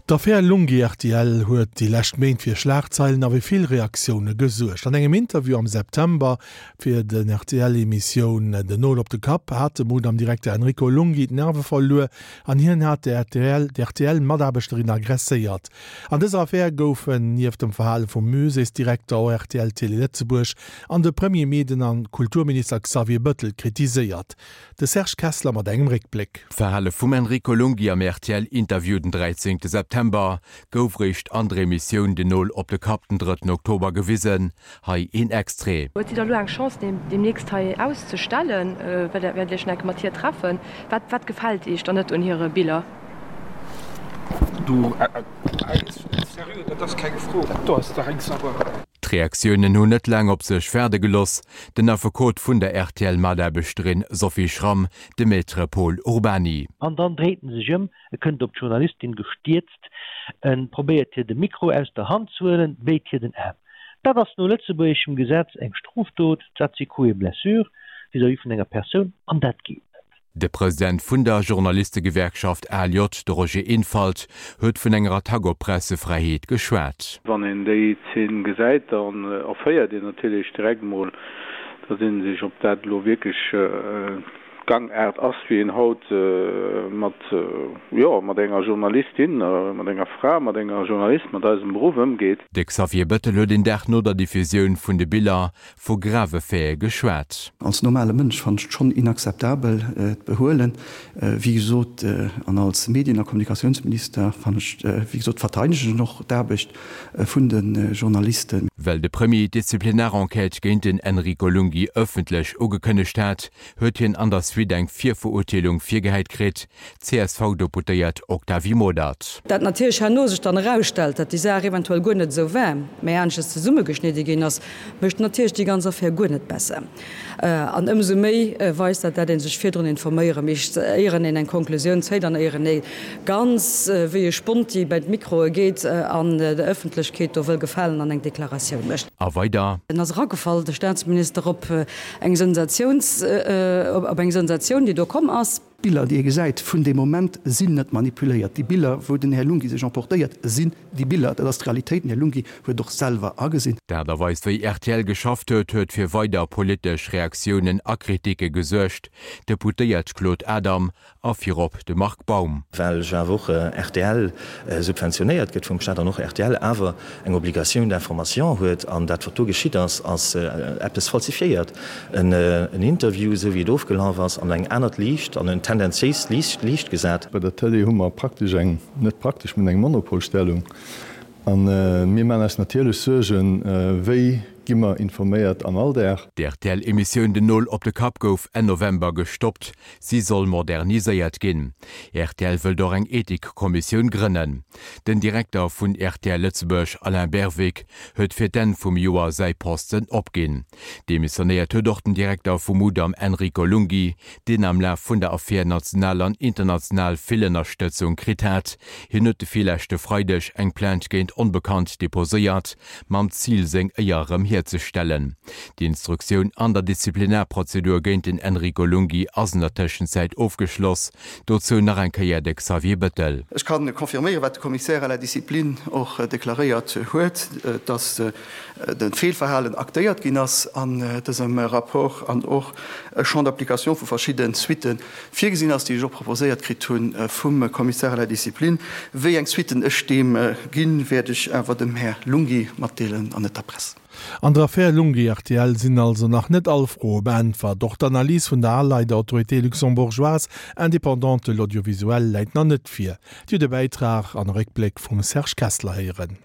D'Affär Lunghi rtl huet déi lescht Méint fir Schlagzeilen a fir vill Reaktioune gesuergt. An engem Interview am September fir den RTL-Emissioun Den Nol op de Kapp hat de Mudam-Direkter Enrico Lunghi d'Nerve verluer an hien hat d'RTL-Mataarbechterin aggresséiert. An dëser Affär goufen nieft dem Verhale vum Muséesdirekter och rtl Télé Lëtzebuerg an de Premier Meden a Kulturminister Xavier Bëttel kritiséiert. De Serge Kessler mat engem Réckbléck. D'Verhale vum Enrico Lunghi am RTL-Interview den 13 September gouf réischt an der Emissioun Den Nol op de Kapp den drëtten Oktober gewisen. Hei een Extrait. Huet si da lo eng Chance deemnächst hei auszestellen? Wäert Iech nach eng Kéier mat hir treffen? Wat wat gefält Iech dann net un hire Biller? Du, Sérieux, dat ass keng Fro, dat do ass dach eng Sauerei. D'Reaktiounen hunn net laang op sech waarde gelooss. Den Affekot vun der RTL-Mataarbechterin Sophie Schramm, de Maître Pol Urbany. An dann dréit en sech ëm, e kënnt op d'Journalistin gestierzt, e probéiert hir de Mikro aus der Hand ze huelen, béit hir den Aarm. Dat ass no lëtzebuergeschem Gesetz eng Strofdot, dat si Coups et blessures vis-à-vis vun enger Persoun, an dat geet net. De President vun der Journalistegewerkschaft ALJ, de Roger Infalt, huet vun enger Attack op d'Pressefräiheet geschwat. Wann een déi Zeen gesäit, dann erféiert een natierlech direkt mol, datt een sech, ob dat elo wierklech d'Gangaart ass, wéi een haut mat, jo, mat enger Journalistin, mat enger Fra, mat enger Journalist, mat eisem Beruff ëmgeet. De Xavier Bettel huet een Dag no der Diffusioun vun de Biller vu grave Faite geschwat. Als normale Mënsch fannen ech et schonn inakzeptabel, d'Behuelen, wéi gesot, an als Medien a Kommunikatiounsminister fannen ech, wéi gesot, verteidegen ech och d'Aarbecht vun de Journalisten. Well de Premier d'Disziplinarenquête géint den Enrico Lunghi ëffentlech ugekënnegt hat, huet hien an der Suite eng Virverurteelung virgehäit kritt, D'CSV-Deputéiert Octavie Modert. Dat natierlech herno sech dann erausstellt, datt déi Saach eventuell guer net esou war, mä aneschters zesummegeschnidde ginn ass, mécht natierlech déi ganz Affär guer net besser. An ëmsou méi weist dat, dat ee sech virdrun informéiere misst, éieren een eng Konklusioun zéit an éieren ee ganz wéi e Sponti bei d'Mikroe geet an der Ëffentlechkeet do wëll gefalen an eng Deklaratioun mécht. A weider. En ass eragefall, de Staatsminister, op eng Sensatiouns, op eng Sensatioun, déi do komm ass. D'Biller, déi ee gesäit vun deem Moment, sinn net manipuléiert. Déi Biller, wou den Här Lunghi sech emportéiert, sinn déi Biller. Dat ass d'Realitéit. Den Här Lunghi huet et och selwer agesinn. D'Aart a Weis, wéi rtl geschafft huet, huet fir weider politesch Reaktiounen a Kritike gesuergt. D'Deputéiert Claude Adam a virop de Marc Baum. Well jo awer och rtl subventionéiert gëtt vum Staat an och rtl awer eng Obligation d'information huet. An dat, wat do geschitt ass, ass eppes falsifiéiert. En Interview, esou wéi et ofgelaf ass, an eng anert Liicht, an en tendenziéist Liicht gesat. Bei der Tëlee hu mer praktesch eng, net praktesch, mir hunn eng Monopolstellung. A mir maachen eis natierlech Suergen, wéi gi mer informéiert am Alldag. D'RTL-Emissioun Den Nol op de Kapp gouf Enn November gestoppt. Si soll moderniséiert ginn. Rtl wëllt och eng Ethikkommissioun grënnen. Den Direkter vun rtl Lëtzebuerg, Alain Berwick, huet fir d'Enn vum Joer säi Posten opginn. Demissionéiert huet och den Direkter vum Mudam Enrico Lunghi, deen am Laf vun der Affär national an international vill Ënnerstëtzung kritt hat. Hien huet de virleschte Freideg eng Plainte géint Onbekannt deposéiert, mam Zil seng Éier erëm hierzestellen. D'Instruktioun an der Disziplinarprozedur géint den Enrico Lunghi ass an der Tëschenzäit ofgeschloss. Dozou nach eng Kéier de Xavier Bettel. Ech ka confirméieren, wat de Commissaire à la discipline och deklaréiert huet, dass de Feelverhalen aktéiert ginn ass an dësem Rapport an och e Champ d'application vu verschidde Suitte virgesinn ass, déi ech och proposéiert kritt hu vum Commissaire à la discipline. Wéi eng Suitten ech deem ginn, wäert ech awer dem Här Lunghi matdeelen an net der Press. An der Affär Lunghi-RTL sinn also nach net all Froe beäntwert. Och d'Analys vun der ALAI, der Autorité luxembourgeoise indépendante de l'audiovisuel, läit nach net vir. Dir hutt e Bäitrag an e Réckbléck vum Serge Kessler héieren.